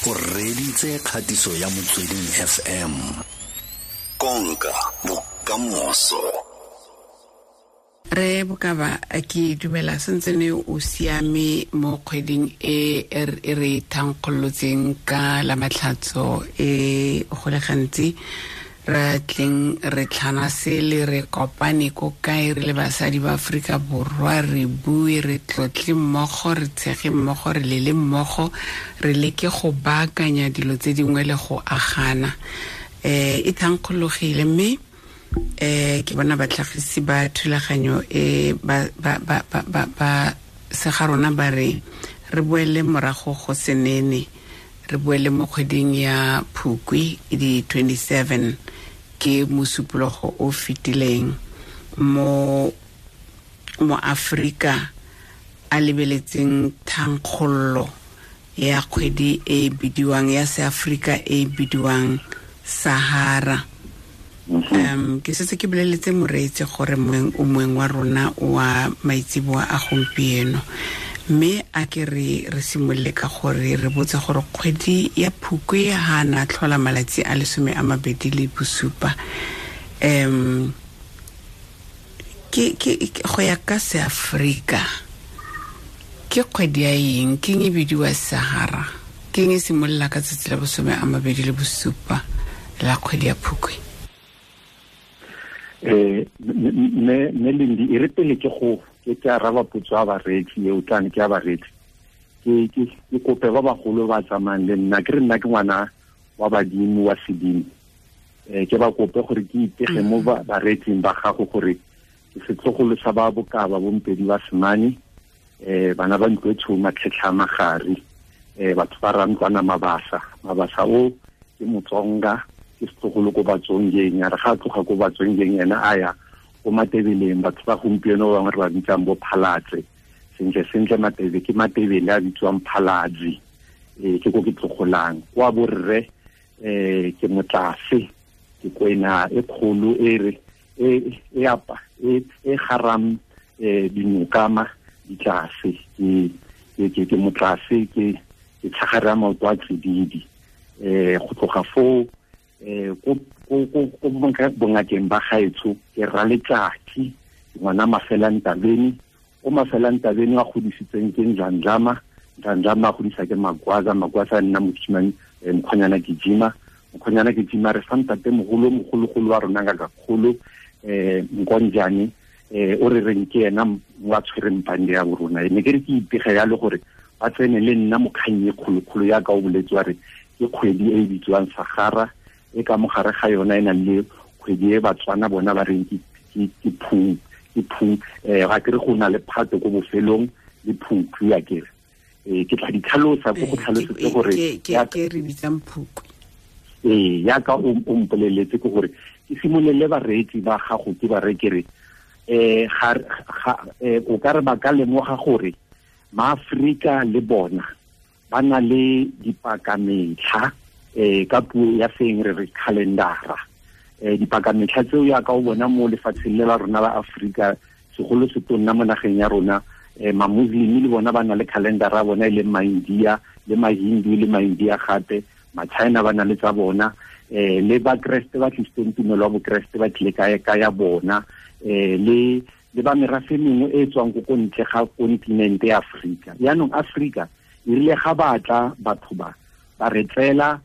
O reditse kgatiso ya Motsweding FM. Konka bokamoso. Re Bokaba, ke dumela sentse ne o siame mo kgweding e e re thankgolotseng ka la matlhatso e go le gantsi re tleng re tlhana sele re kopane ko kae re le basadi ba Aforika Borwa, re bue, re tlotle mmogo, re tshege mmogo, re lele mmogo, re leke go baakanya dilo tse dingwe le go agana. E thankgologile mme ke bona batlhagisi ba thulaganyo e ba sega rona ba re re boele morago go senene, re boele mo kgweding ya Phukwi di 27 ke mosupologo o fetileng mo Afrika a lebeletseng thankgollo ya kgwedi e bidiwang ya seAfrika e bidiwang Sahara. Ke setse ke boleletse moreetsi gore o moeng wa rona wa maitseboa a gompieno, mme a ke re simolole ka gore re botse gore kgwedi ya Phukwi ha na tlhola malatsi a 27. Ke go ya ka seAfrika ke kgwedi ya eng, ke eng e bidiwa Sahara, ke eng e simolola ka tsatsi la 27 la kgwedi ya Phukwi? Me Lindi, e re pele ke go ke araba potso ya bareetsi eo tlane ke ya bareetsi, ke kope ba bagolo ba tsamayang le nna, ke re nna ke ngwana wa badimo wa sedimo, ke ba kope gore ke ipege mo bareetsing ba gago gore ke setlogolo sa ba Bokaba bompedi ba Semane, bana ba ntlo e tshweu matlhetlha a magare, batho ba rantlwana Mabasa. Mabasa o ke Motsonga, ke setlogolo ko Batsongeng, ya re ga a tloga ko Batsongeng ena a ya ko Matebeleng, batho ba gompieno ba bangwe re ba bitsang bo Phalatse. Sentle sentle Matebe ke Matebele a bitswang Phalatse, ke ko ke tlogolang. Kwa borre, ke motlase, ke kwena e kgolo e re e apa e garam dinokama ditlase, ke motlase, ke tlhagare ya maoto a tsididi. Go tloga foo, ko bongakeng ba gaetsho ke Raletsatsi, ngwana Mafelantabeni, o Mafelantabeni a godisitseng ke Ndlandlama, Ndlandlama a godisa ke Magwaza, Magwaza a nna mosimane, Mkhonyana Gijima, Mkhonyana Gijima re fa ntate mogolo, mogologolo wa rona ngaka kgolo, Nkonjane, o re reng ke ena wa tshwereng pande ya borona. Ne ke re ke ipege yalo gore ba tsene le nna mo kgang e kgolokgolo ya ka o boletse wa re ke kgwedi e e bitswang Sahara, e ka mogare ga yona e nang le kgwedi e Batswana bona ba reng ke phung, ke phung, ga ke re go na le phato ko bofelong le phukwi, a ke re. Ke tla di tlhalosa ko go tlhalosetse gore ke re bitsang phukwi. Ya ka o mpoleletse ke gore ke simolele bareetsi ba gago ke ba re ke re, o ka re ba ka lemoga gore maAfrika le bona ba na le dipakametlha, ka puo ya seng re re calendara. Dipakametlha tseo ya ka o bona mo lefatsheng le la rona la Afrika, segolo se tonna mo nageng ya rona, ma-Muslim le bona ba na le calendara ya bona e leng ma-India le ma-Hindu le ma-India gape, ma-China ba na le tsa bona, le ba Kreste ba tlisitseng tumelo ya boKreste ba tlile ka ya bona, le ba merafe mengwe e tswang ko ntle ga kontinente ya Afrika. Jaanong Afrika e rile ga batla batho ba re tseela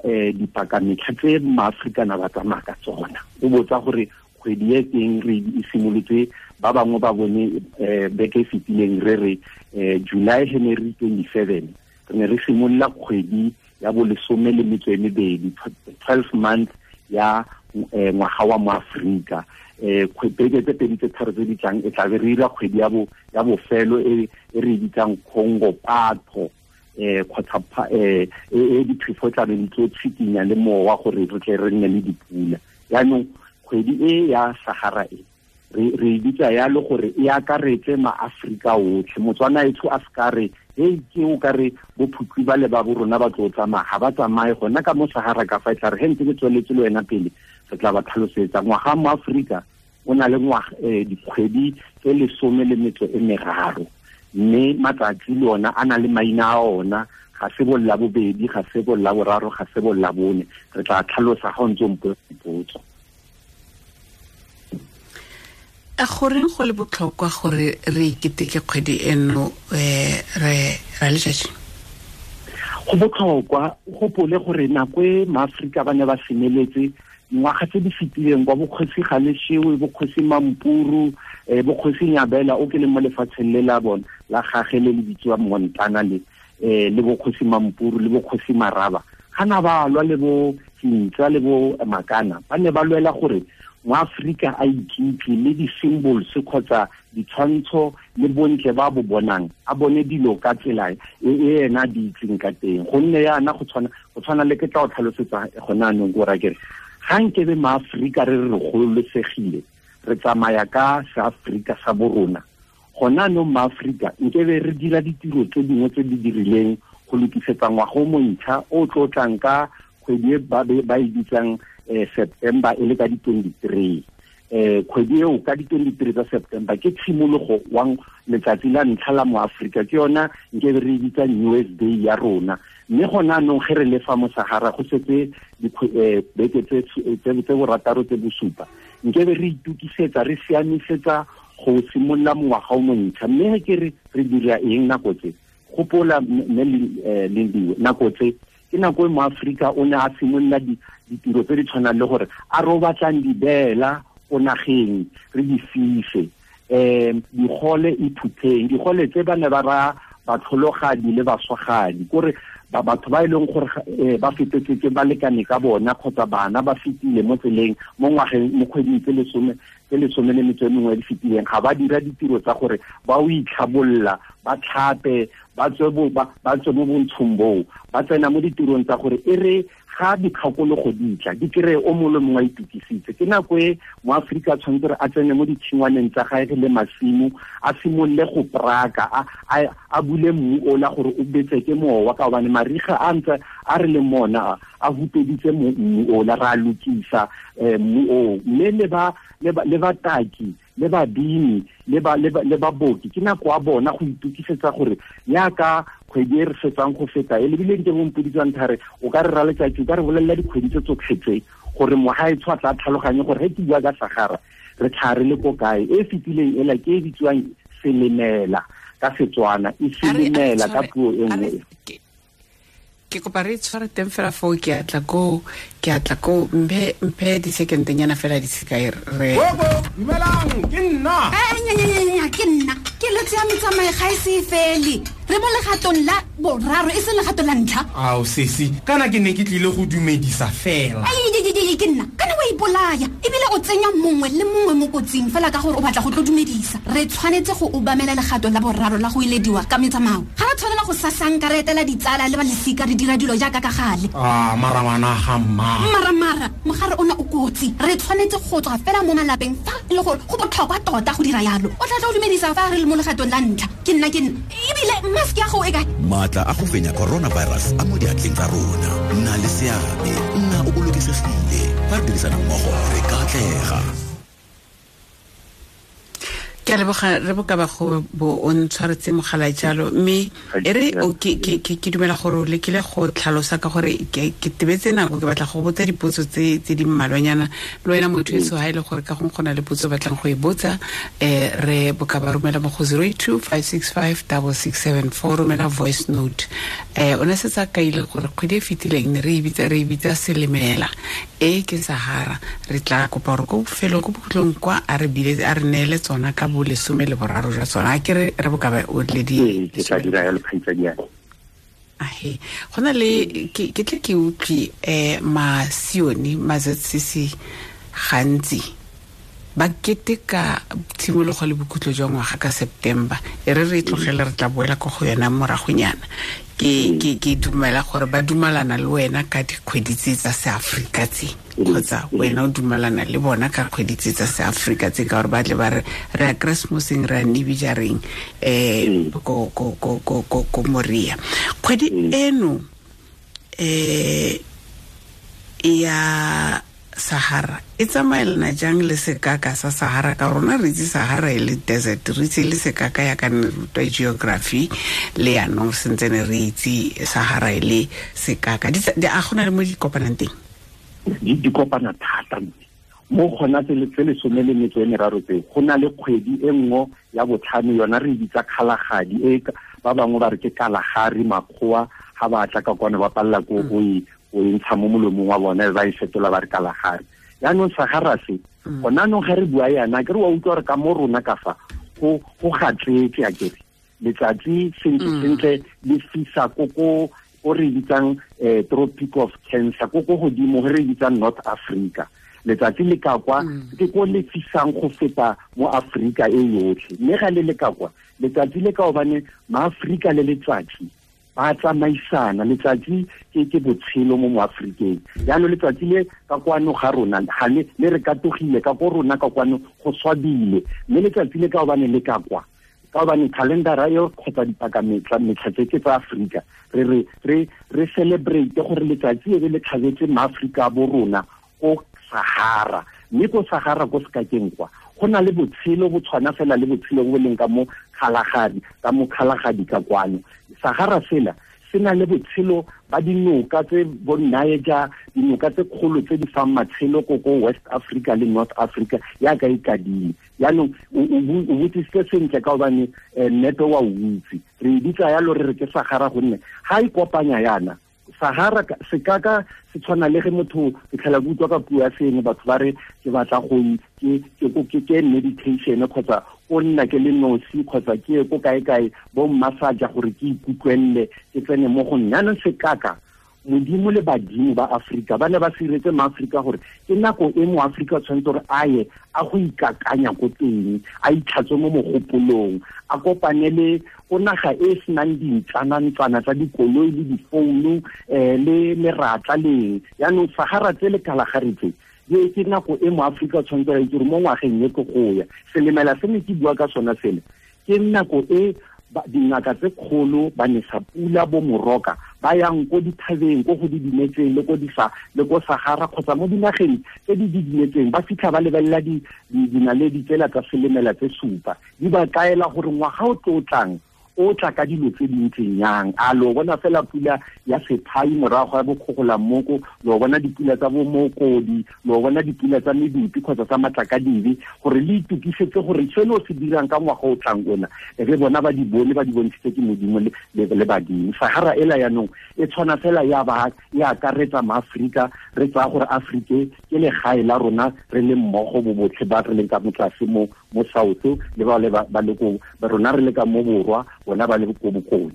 dipakametlha tse maAfrikana ba tsamaya ka tsona. O botsa gore kgwedi e teng re e simolotse, ba bangwe ba bone beke e fetileng re re July Henry 27 re ne re simolola kgwedi ya bolesome le metso e mebedi, 12 months ya ngwaga wa mo Afrika. Beke tse pedi tse tharo tse di tlang e tla be re dira kgwedi ya bofelo e re e bitsang Congo Patho, kgotsa e diphefo tla be di tlo tshikinya le mowa gore re tle re nne le dipula. Jaanong kgwedi e ya Sahara e re e bitsa yalo gore e akaretse maAfrika otlhe. Motswana etsho a se ka re hei ke o ka re bo Phukwi ba le ba bo rona ba tlo tsamaya, ga ba tsamaye gona ka mo Sahara ka fa e tla re he ntse ke tsweletse le wena pele re tla ba tlhalosetsa. Ngwaga mo Afrika o na le dikgwedi tse 13, mme matsatsi le ona a na le maina a ona, ga ga se bo la bobedi, ga se bo la boraro, ga se bo la bone. Re tla tlhalosa ga o ntse o mpotsa dipotso. A goreng go le botlhokwa gore re iketeke kgwedi eno re ra letsatsi? Go botlhokwa, o gopole gore nako e maAforika ba ne ba semeletse dingwaga tse di fetileng kwa bokgosi Galeshewe, bokgosi Mampuru, bokgosi Nyabela o ke leng mo lefatsheng le la bona la gage le le bitsiwang Montana le le bokgosi Mampuru le bokgosi Maraba, ga na ba lwa le bo Hintsa le bo Makana, ba ne ba lwela gore moAforika a ikitse le di-symbols kgotsa ditshwantsho le bontle ba bo bonang, a bone dilo ka tsela e ena di itseng ka teng. Gonne yana go tshwana le ke tla o tlhalosetsa gone anong ko ra kere ga nkebe maAforika re re gololosegile, re tsamaya ka seAforika sa borona, gone anong maAforika nkebe re dira ditiro tse dingwe tse di dirileng go lokisetsa ngwaga o montšha o tlo tlang ka kgwedi e ba e bitsang September e le ka di-23. Kgwedi eo ka di-23 tsa September ke tshimologo wa letsatsi la ntlha la moAforika, ke yona nkebe re bitsa New Year's Day ya rona. Mme gone anong ge re le fa mo Sahara go setse beke tse borataro tse bosupa, nkebe re itukisetsa, re siamisetsa go simolola mongwaga o montšha. Mme ge ke re dira eng nako tse? Gopola mme Lindiwe, nako tse ke nako e moAforika o ne a simolola ditiro tse di tshwanang le gore a re o batlang dibeela ko nageng re di fise, digole iphutheng, digole tse ba ne ba raya batlhologadi le baswagadi, kore batho ba e leng gore ba fetetse ke balekane ka bona kgotsa bana ba fetile mo tseleng mo ngwageng mo kgweding tse lesome le metso e mengwe di fetileng, ga ba dira ditiro tsa gore ba o itlhabolla, ba tlhape, ba tswe mo bontshong boo, ba tsena mo ditirong tsa gore e re ga dikgakologo di tla di kry-e o mongwe le mongwe a itukisitse. Ke nako e moAforika a tshwanetse gore a tsene mo ditshingwaneng tsa gage le masimo, a simolole go praka, a bule mmu ola gore o betse ke mowa, ka gobane mariga a ntse a re le mona a hupeditse mmu ola, ra lokisa mmu oo. Mme le bataki le babini le baboki ke nako a bona go itukisetsa gore yaka kgwedi e re fetsang go feta e lebile nke bompoditswang thare o ka re ra letsatsi, o ka re bolelela dikgwedi tse tsotlhe tse gore mogaetsho a tla tlhaloganye gore ge ke bua ka Sahara re tlhare le ko kae. E fetileng ela ke e bitsiwang selemela ka Setswana, e selemela ka puo e nngwe. Ke kopa re tshware teng fela foo, ke atla ko mphe di-second-nyana fela di sekae re. Dumelang, ke nna. Ke nna. Ke letse ya metsamao ga e se fele. Re mo legatong la boraro e seng legato la ntlha. Ao sesi, kana ke ne ke tlile go dumedisa fela. Ke nna, kana wa ipolaya ebile o tsenya mongwe le mongwe mo kotsing fela ka gore o batla go tlo dumedisa. Re tshwanetse go obamela legato la boraro la go ilediwa ka metsamao. Ga re tshwanela go sasanka re etela ditsala le ba lesika re dira dilo jaaka ka gale. Mara ngwana ga mma. Mara mogare ona o kotsi. Re tshwanetse go tswa fela mo malapeng fa e le gore go botlhokwa tota go dira yalo. O tla tla o dumedisa fa re le mo legatong la ntlha. Ke nna ebile mask ya go e kae? Maatla a go fenya coronavirus a mo diatleng tsa rona. Nna le seabe, nna o bolokesegile. Fa re dirisana mmogo re ka atlega. Ke a leboga re bokaba go bo o ntshwaretse mogala jalo, mme e re ke dumela gore o lekile go tlhalosa ka gore ke tebetse nako, ke batla go botsa dipotso tse di mmalwanyana le wena motho eso ha e le gore ka gongwe go na le potso batlang go e botsa, re bokaba romela mo go 082 565 6674, romela voice note. O ne setse a kaile gore kgwedi e fetileng ne re e bitsa selemela, e ke Sahara. Re tla kopa gore ko bofelong ko bokhutlong kwa a re neele tsona ka bo lesome le boraro jwa tsona. A ke re bokaba o le di ke tla dira yalo kgaitsadi ya. Ahe, go na le ke tle ke utlwe masione ma-ZCC gantsi ba keteka tshimologo le bokhutlo jwa ngwaga ka September. E re re tlogele re tla boela ko go yona moragonyana. Ke dumela gore ba dumalana le wena ka dikgwedi tse tsa seAforika tse, kgotsa wena o dumalana le bona ka kgwedi tse tsa seAforika tse, ka gore ba tle ba re re ya Keresemoseng, re ya Nibijareng ko Moria. Kgwedi eno ya Sahara e tsamaelana jang le sekaka sa Sahara? Ka rona re itse Sahara e le desert, re itse le sekaka ya ka ne rutwa geography le yanong sentse ne re itse Sahara e le sekaka. A gona le mo di kopanang teng? Di kopana thata mo gona tse 13 tseo. Go na le kgwedi e nngwe ya botlhano, yona re bitsa Kgalagadi, e ba bangwe ba re ke Kalahari. Makgowa ga ba tla ka kwana ba palela ko go e ntsha mo molomong wa bona, ba e fetola ba re Kalahari. Yaanong Sahara se gona anong ga re bua yana ke re wa utlwa gore ka mo rona ka fa go gatletse a kere letsatsi sentle sentle le fisa ko o re bitsang Tropic of Cancer, ko godimo re bitsang North Africa. Letsatsi le ka kwa ke ko le fisang go feta mo Afrika e yotlhe. Mme ga le le ka kwa letsatsi le ka obane maAfrika le letsatsi ba tsamaisana. Letsatsi ke botshelo mo Afrikeng. Jaanong letsatsi le ka kwano ga rona ga le re katogile ka ko rona ka kwano go swabile, mme letsatsi le ka obane le ka kwa ka obane calendara eo kgotsa dipakametlha metlha tse ke tsa Afrika, re celebrate gore letsatsi e be le tlhabetse maAfrika bo rona ko Sahara. Mme ko Sahara ko sekakeng kwa go na le botshelo bo tshwana fela le botshelo bo leng ka mo Kgalagadi, ka mo Kgalagadi ka kwano. Sahara sela se na le botshelo ba dinoka tse bo Niger, dinoka tse kgolo tse di fang matshelo ko West Africa le North Africa yaka e kadile. Yaanong o botsisitse sentle ka gobane nnepe wa o itse. Re e bitsa yalo re re ke Sahara gonne ga e kopanya yana Sahara sekaka se tshwana le ge motho ke tlhela ke utlwa ka puo ya sengwe batho ba re ke batla go ke meditation kgotsa o nna ke le nosi kgotsa ke ye ko kae-kae bo mmasaja gore ke ikutlwelele ke tsene mo go nna. Jaanong sekaka Modimo le badimo ba Afrika ba ne ba siretse maAfrika gore ke nako e mo Afrika tshwanetse gore a ye a go ikakanya ko teng, a itlhatswe mo mogopolong, a kopane le ko naga e e senang dintlana-ntlana tsa dikoloi le difounu le meratla leng. Jaanong Sahara tse le Kalahari tse ke nako e mo Afrika tshwanetse a itse gore mo ngwageng e ke go ya. Selemela se ne ke bua ka sona sele ke nako e dingaka tse kgolo ba nesa pula bo moroka ba yang ko dithabeng ko go didimetseng le ko disa le ko Sahara kgotsa mo dinageng tse di didimetseng, ba fitlha ba lebelela dinaledi tsela tsa selemela tse supa, di ba kaela gore ngwaga o tlo tlang o tla ka dilo tse di ntseng yang. A lo bona fela pula ya sephai morago ga bokgogolamoko, lo bona dipula tsa bomokodi, lo bona dipula tsa medupi kgotsa tsa matlakadibe, gore le itukisetse gore seno se dirang ka ngwaga o tlang ona re bona ba di bone, ba di bontshitse ke Modimo le badimo. Sahara ela yaanong e tshwana fela ya ba ya akaretsa maAfrika, re tsaya gore Afrika ke legae la rona re le mmogo bo botlhe ba re leng ka mo tlase mo South le ba le ba le ko rona re le ka mo borwa, bona ba le ko bokone.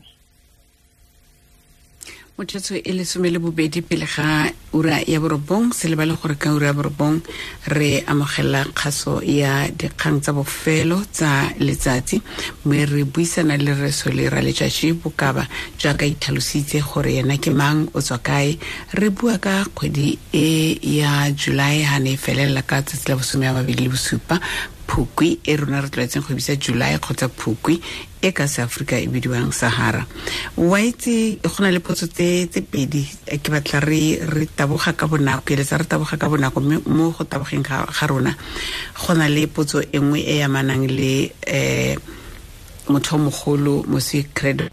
Motsotso e 12 pele ga ura ya 9, se lebale gore ka ura ya 9 re amogela kgaso ya dikgang tsa bofelo tsa letsatsi, mme re buisana le Rre Solly Raletsatsi Bokaba jaaka itlhalositse gore yena ke mang, o tswa kae. Re bua ka kgwedi e ya July ha ne e felela ka tsatsi la 27 Phukwi e rona re tlwaetseng go bitsa July kgotsa Phukwi e ka se-Afrika e bidiwang Sahara. Wa itse go na le potso tse pedi ke batla re taboga ka bonako, ke eletsa re taboga ka bonako, mme mo go tabogeng ga rona go na le potso e nngwe e amanang le motho mogolo Moswi Credo.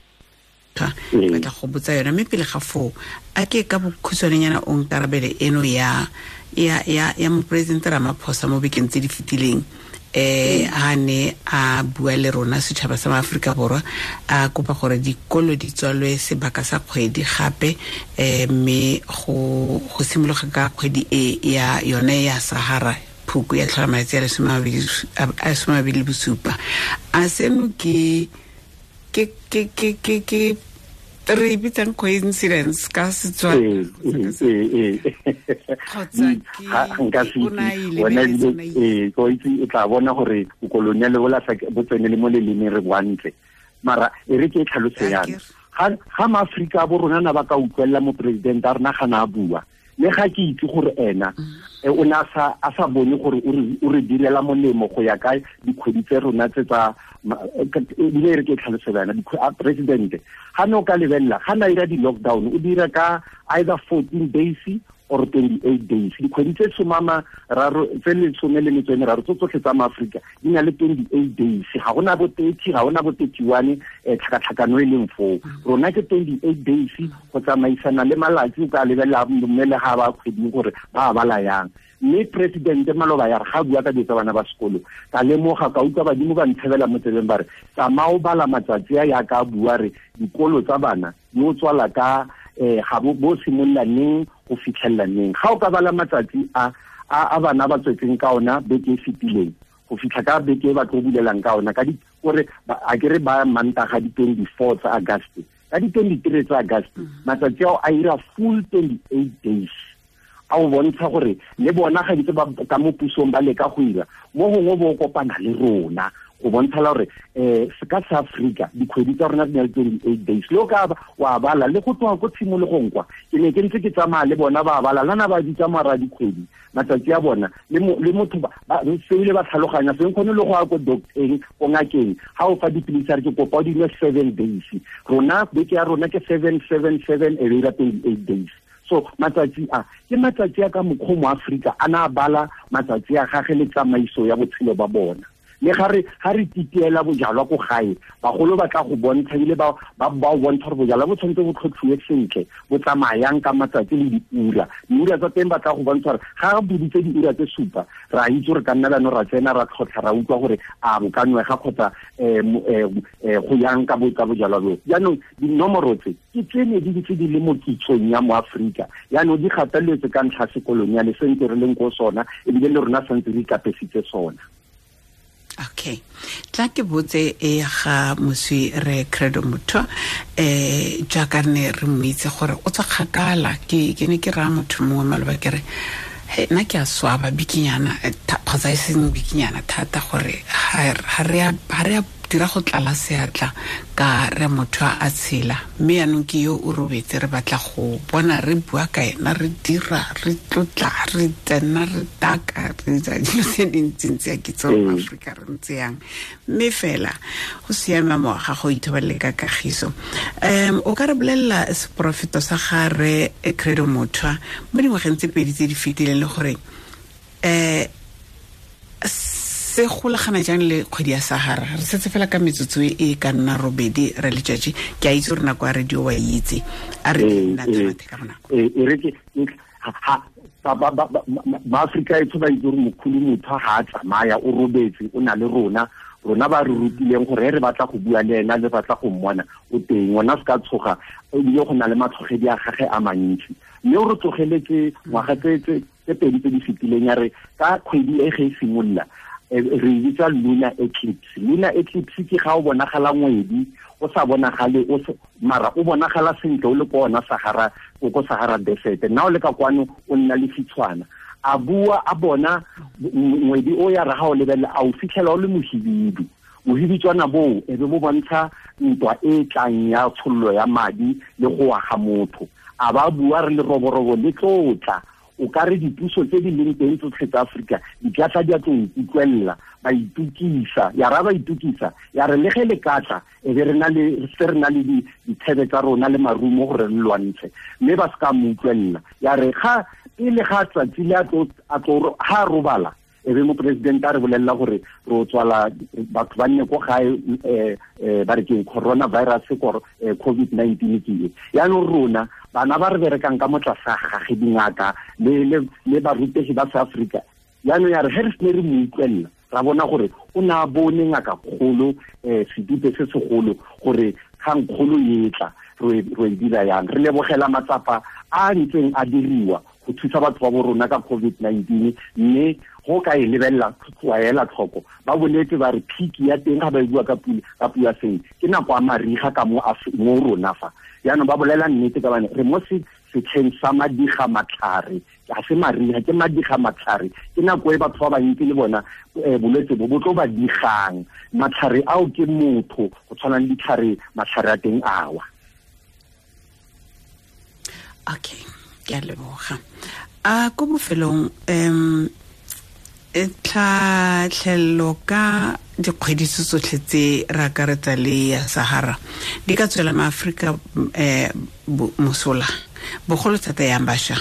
Batla go botsa yona, mme pele ga foo a ke ka bokhutshwanenyana o nkarabele eno ya moporesidente Ramaphosa mo bekeng tse di fetileng a ne a bua le rona setšhaba sa Afrika Borwa, a kopa gore dikolo di tswalwe sebaka sa kgwedi gape, mme go simologa ka kgwedi e ya yone ya Sahara Phukwi ya tlhola malatsi a 27. A seno ke re bitsang coincidence ka Setswana kgotsa ke o tla bona gore bokoloniale bo tsene le mo lelemeng re boantle. Mara e re ke e tlhalose yana, ga maAfrika bo rona na ba ka utlwelela moporesidente a rena ga na a bua, le ga ke itse gore ena o ne a sa bone gore o re direla molemo go ya ka dikgwedi tse rona tse tsa ebile re ke tlhalose bana presidente ga ne o ka lebelela ga na ira di-lockdown o dira ka either 14 days or 28 days. Dikgwedi tse somama raro tse lesome le metso e meraro tso tsotlhe tsa maaforika di na le 28 days. Ga gona bo 30, ga gona bo 31, tlhakatlhakano e leng foo. Rona ke 28 days go tsamaisana le malatsi, o ka lebelela mme le ga ba kgweding gore ba bala yang. Mme presidente maloba ya re ga bua ka dilo tsa bana ba sekolo, ka lemoga ka utlwa badimo ba ntshebela mo tsebeng ba re tsamaya o bala matsatsi a yaka a bua re dikolo tsa bana di o tswala ka ga bo simolola neng go fitlhelela neng. Ga o ka bala matsatsi a a bana ba tswetseng ka ona beke e fetileng go fitlha ka beke e ba tlo bulelang ka ona, ka di kore a ke re ba Mantaga di 24 tsa August, ka di 23 tsa August, matsatsi ao a ira full 28 days. A o bontsha gore le bona ga ditse ba ka mo pusong ba leka go ira mo gongwe bo kopana le rona go bontsha la gore se ka sa Afrika dikgwedi tsa rona di na le 28 days. Le o ka wa bala le go tloga ko tshimologong kwa ke ne ke ntse ke tsamaya le bona ba bala lana ba bitsa mara dikgwedi matsatsi a bona le motho ba seile ba tlhaloganya seng kgone le go ya ko docteng ko ngakeng ga o fa dipilisi a re ke kopa o di nwe 7 days. Rona beke ya rona ke 7 7 7 e be ira 28 days. So matsatsi a ke matsatsi a ka mokgwa mo Afrika a na bala matsatsi a gage le tsamaiso ya botshelo ba bona. Le ga re titiela bojalwa ko gae, bagolo ba tla go bontsha ebile ba o bontsha gore bojalwa bo tshwanetse bo tlhotlhiwe sentle, bo tsamayang ka matsatsi le diura. Diura tsa teng ba tla go bontsha gore ga re boditse diura tse supa, re a itse gore ka nna jaanong ra tsena ra tlhotlha ra utlwa gore a bo ka nwega kgotsa go yang ka bojalwa bo. Jaanong dinomoro tse ke tse ne di ntse di le mo kitsong ya mo Afrika, jaanong di gateletse ka ntlha sekoloniale se ntse re leng ko sona, ebile le rona santse re ikapesitse sona. Okay, tla ke botse e ga moswi re Credo Mutwa, jaaka ne re mo itse gore o tswa kgakala. Ke ne ke raya motho mongwe maloba ke re he nna ke a swaba bikinyana kgotsa e seng bikinyana thata gore ga re a dira go tlala seatla ka re motho a tshela, mme yaanong ke yo o robetse, re batla go bona re bua ka ena, re dira, re tlotla, re tsena, re taka, re dira dilo tse dintsintsi a kitso mo Aforika re ntse yang. Mme fela go siama mo ga go ithoballe ka kagiso. O ka re bolelela seporofeto sa ga re Credo Mutwa mo dingwageng tse pedi tse di fetileng le gore se golagana jang le kgwedi ya Sahara? Re setse fela ka metsotso e ka nna robedi re letšatši. Ke a itse gore nako ya radio wa itse, a re nna tshwathe ka bonako. E re ke Maaforika etsho ba itse gore mokhulu motho ga a tsamaya o robetse, o na le rona. Rona ba re rutileng gore re batla go bua le ena, le batla go mmona o teng, ona se ka tshoga, ebile go na le matlhogedi a gage a mantsi. Mme o re tlogeletse ngwaga tse pedi tse di fetileng ya re ka kgwedi e ge e simolola, re bitsa lunar eclipse. Lunar eclipse ke ga o bonagala ngwedi o sa bonagale, mara o bonagala sentle o le ko ona Sahara, o ko Sahara Desert. Nna o le ka kwano o nna le fitshwana. A bua a bona ngwedi o ya re ga o lebelela a o fitlhela o le mohibidu. Mohibitswana boo e be bo bontsha ntwa e tlang ya tshollo ya madi le go wa ga motho. A ba bua re le roborobo le tlotla, o ka re dipuso tse di leng teng tsotlhe tsa Afrika di tla tla di a tlo nkutlwelela, ba itukisa, ya ra ba itukisa, ya re le ge le ka tla e be re na le se re na le dithebe tsa rona le marumo gore re lwantshe, mme ba se ka mo utlwelela. Ya re ga pele ga tsatsi le a tlo ha robala, e be mopresidente a re bolelela gore re tswala batho ba nne ko gae, ba re ke coronavirus kor COVID-19 ke e. Yaanong rona bana ba re berekang ka mo tlase ga gage dingaka le barutegi ba South Africa, yaanong ya re ge re sene re mo utlwelela, ra bona gore o ne a bone ngaka kgolo, sedupe se segolo gore kgangkgolo e tla re e dira yang. Re lebogela matsapa a ntseng a diriwa go thusa batho ba bo rona ka COVID-19, mme go ka e lebelela wa ela tlhoko ba boletse ba re peak ya teng ga ba e bua ka puo ya seng ke nako ya mariga ka mo rona fa. Jaanong ba bolela nnete ka bane re mo setlheng sa madiga matlhare, ga se mariga, ke madiga matlhare, ke nako e batho ba bantsi le bona bolwetse bo bo tlo ba digang. Matlhare ao ke motho go tshwana le ditlhare, matlhare a teng awa. Okay, ke a leboga. A ko bofelong tlhatlhello ka dikgwedi tsotlhe tse re akaretsa le ya Sahara di ka tswela maAforika mosola bogolo thata yang bašwa?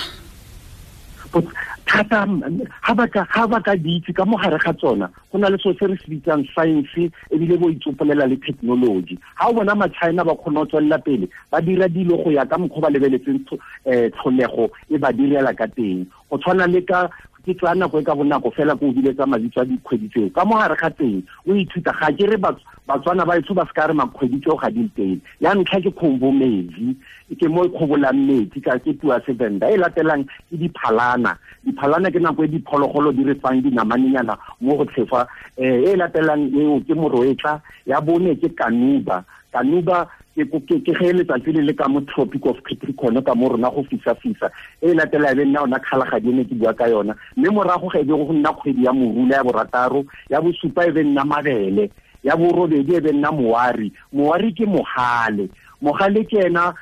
Thata ha ba ka di itse ka mo gare ga tsona go na le so se re se bitsang science ebile bo itsopolela le technology. Ha o bona ma-China ba kgona go tswelela pele ba dira dilo go ya ka mokgwa ba lebeletseng tlholego e ba direla ka teng. Go tshwana le ka ke tsaya nako e ka bonako fela ko o biletsa mabitso a dikgwedi tseo ka mo gare ga teng o ithuta. Ga ke re Batswana ba etsho ba se ka re makgwedi tseo ga di teng. Ya ntlha ke khombometsi, ke mo e kgobolang metsi ka ke puo ya Sevenda. E latelang ke diphalana. Diphalana ke nako e diphologolo di re fang dinamanenyana mo go tlhefa. E latelang eo ke moroetla. Ya bone ke kanuba. Kanuba ke ge letsatsi le le ka mo Tropic of Capricorn ka mo rona go fisa-fisa. E latela e be nna ona kgalagadi e ne ke bua ka yona. Mme morago ga e be go nna kgwedi ya morula ya borataro, ya bosupa e be nna mabele, ya borobedi e be nna moari. Moari ke mogale. Mogale ke ena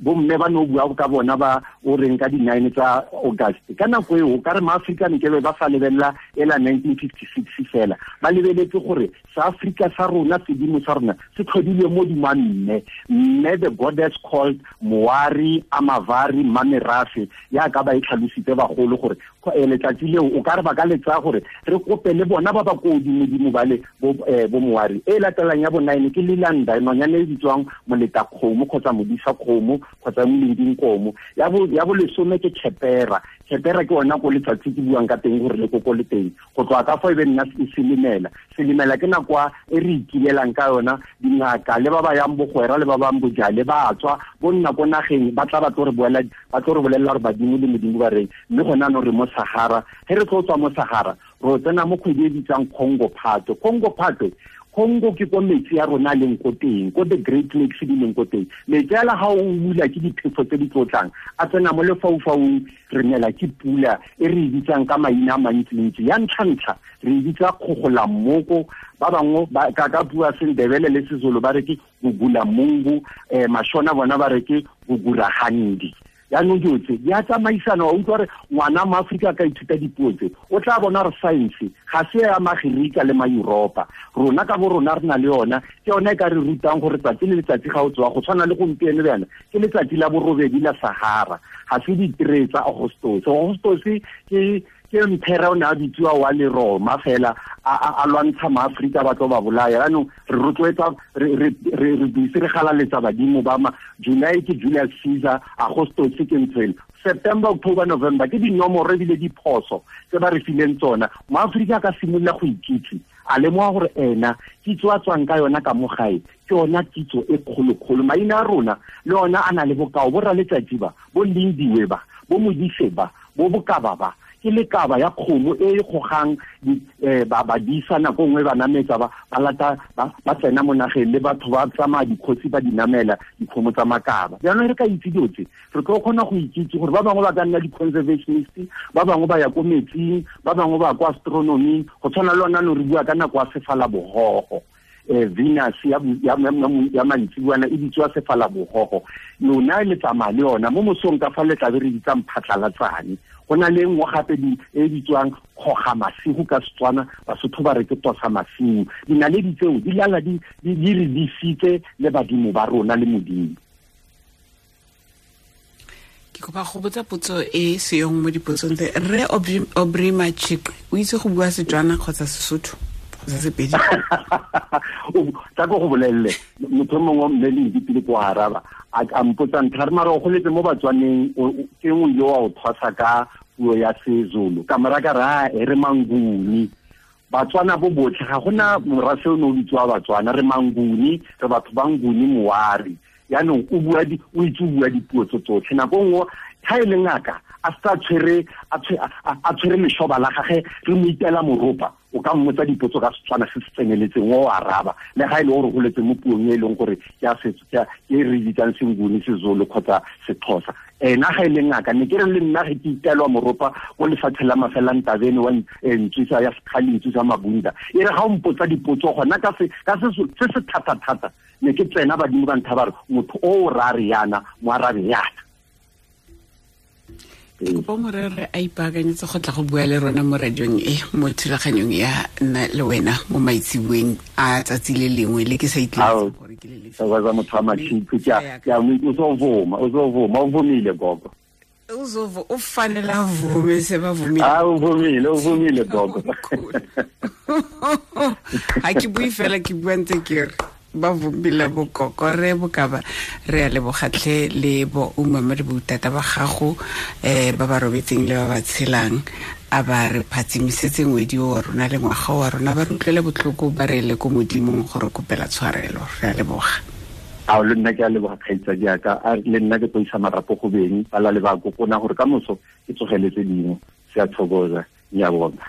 bomme ba no bua ka bona ba o reng ka di-9 tsa August. Ka nako eo ka re maAfrika ne ke be ba sa lebelela ela 1956 fela, ba lebeletse gore sa Afrika sa rona sedimo sa rona se tlhodilwe mo dima mme. Mme the goddess called Moari, Amavari, Mamerafe, ya ka ba e tlhalositse bagolo gore letsatsi leo o ka re ba ka le tsaya gore re kope le bona ba ba ko godimo-dimo ba le bo Moari. E latelang ya bo 9 ke Lilanda, nonyane e bitswang moleta kgomo kgotsa modisa kgomo kgotsa molending komo. Ya bo lesome ke Khepera. Khepera ke ona ko letsatsi ke buang ka teng gore le koko le teng. Go tloga ka fo e be nna selimela. Selimela ke nako e re ikilelang ka yona dingaka le ba ba yang bogwera le ba bang bojale ba tswa bo nna ko nageng ba tla ba tlo re boela ba tlo re bolelela gore badimo le modimo ba reng. Mme gona no re mo Sahara. Ge re tlo tswa mo Sahara ro tsena mo kgwedi e bitsang Congo Phatwe. Congo Phatwe, Congo ke ko metsi a rona leng ko teng, ko the Great Lakes di leng ko teng. Metsi ala ha o bula ke diphefo tse di tlotlang, a tsena mo lefaufaung, re nela ke pula e re e bitsang ka maina a mantsintsi. Ya ntlha-ntlha re e bitsa kgogolammoko, ba bangwe ka bua Sendebele le Sezulu ba re ke gugulamungu, Mashona bona ba re ke gugurahandi. Yaanong dilo tse di a tsamaisana. Wa utlwa gore ngwana mo Aforika ka ithuta dipuo tse o tla bona gore science ga se ya Magerika le ma-Europa. Rona ka bo rona re na le yona, ke yona e ka re rutang gore tsatsi le letsatsi ga o tsoga go tshwana le gompieno bjana ke letsatsi la borobedi la Sahara, ga se di-3 tsa Augustus. Augustus ke mphera o ne a bitsiwa wa le Roma fela a lwantsha maAforika ba tlo ba bolaya. Jaanong re rotloetsa re bise re galaletsa badimo ba ma July ke Julius Caesar, Augustus ke ntshwele. September, October, November ke dinomoro ebile diphoso tse ba re fileng tsona. MoAforika a ka simolola go ikitse, a lemoga gore ena kitso a tswang ka yona ka mo gae ke yona kitso e kgolo-kgolo. Maina a rona le ona a na le bokao, bo raletsatsi ba, bo Lindiwe ba, bo Modise ba, bo Bokaba ba, ke lekaba ya kgomo e e gogang ba badisa nako nngwe ba nametsa ba lata ba tsena mo nageng le batho ba tsamaya dikgosi ba di namela dikgomo tsa makaba. Jaanong re ka itse dilo tse re tlo kgona go ikitse gore ba bangwe ba ka nna di-conservationist, ba bangwe ba ya ko metsing, ba bangwe ba ya ko astronoming. Go tshwana le ona no re bua ka nako ya sefalabogogo, Venus ya mantsibuana e bitswa sefalabogogo. Lona le tsamaya le yona mo mosong ka fa le tlabe re bitsang phatlhalatsane. Go na le nngwe gape e bitswang kgoga masigo ka Setswana, Basotho ba re ke tosa masigo. Dinaledi tseo di lala di re disitse le badimo ba rona le Modimo. Ke kopa go botsa potso e seyong mo dipotsong tse. Rre Aubrey Matshiqi o itse go bua Setswana kgotsa Sesotho kgotsa Sepedi? Tla ko go bolelele motho mongwe mme le dipile ko araba a mpotsa ntlha re mara o goletse mo Batswaneng ke nngwe ile wa o thwasa ka puo ya Sezulu ka mora ka ra e re Manguni. Batswana bo botlhe ga gona morafe o ne o bitsiwa Batswana, re Manguni, re batho ba Nguni Moari. Yaanong o bua o itse o bua dipuo tse tsotlhe. Nako nngwe ga e le ngaka a sa tshwere a tshwere leshoba la gage re mo itela moropa, o ka mmotsa dipotso ka Setswana se se tseneletseng o araba, le ga e le gore o goletse mo puong e leng gore ke a setso ke e re bitsang Senguni, Sezulu kgotsa Sexhosa. Ena ga e le ngaka ne ke re le nna ge ke itelwa moropa ko lefatshe la Mafelantabene wa ntswisa ya Sekgale, ntswisa Mabunda, e re ga o mpotsa dipotso gona ka se se thata-thata ne ke tsena badimo ba ntha ba re motho o ra re yana mo arabe yana. Ke kopa morere a ipaakanyetse go tla go bua le rona mo radiong e mo thulaganyong ya nna le wena mo maitseboeng a tsatsi le lengwe le ke sa itletse gore ke le lefe. Wa motho wa Matshiqi ke a o so vuma, o vumile gogo. Uzovo o fanele avume sebavumile. A o vumile gogo. Ha ke bue fela, ke bua ntse ke re ba vumile bokoko re bokaba. Re a lebogatlhe le bo umama le boutata ba gago, ba ba robetseng le ba ba tshelang, a ba re phatsimisetse ngwedi o wa rona le ngwaga wa rona, ba re utlwele botlhoko, ba re le ko modimong gore kopela tshwarelo. Re a leboga. A le nna ke a leboga, kgaitsadi yaka. A le nna ke tlo isa marapo go beng ba la le ba kokona gore ka moso ke tsogeletse dingwe. Se a thokoza, ngiyabonga.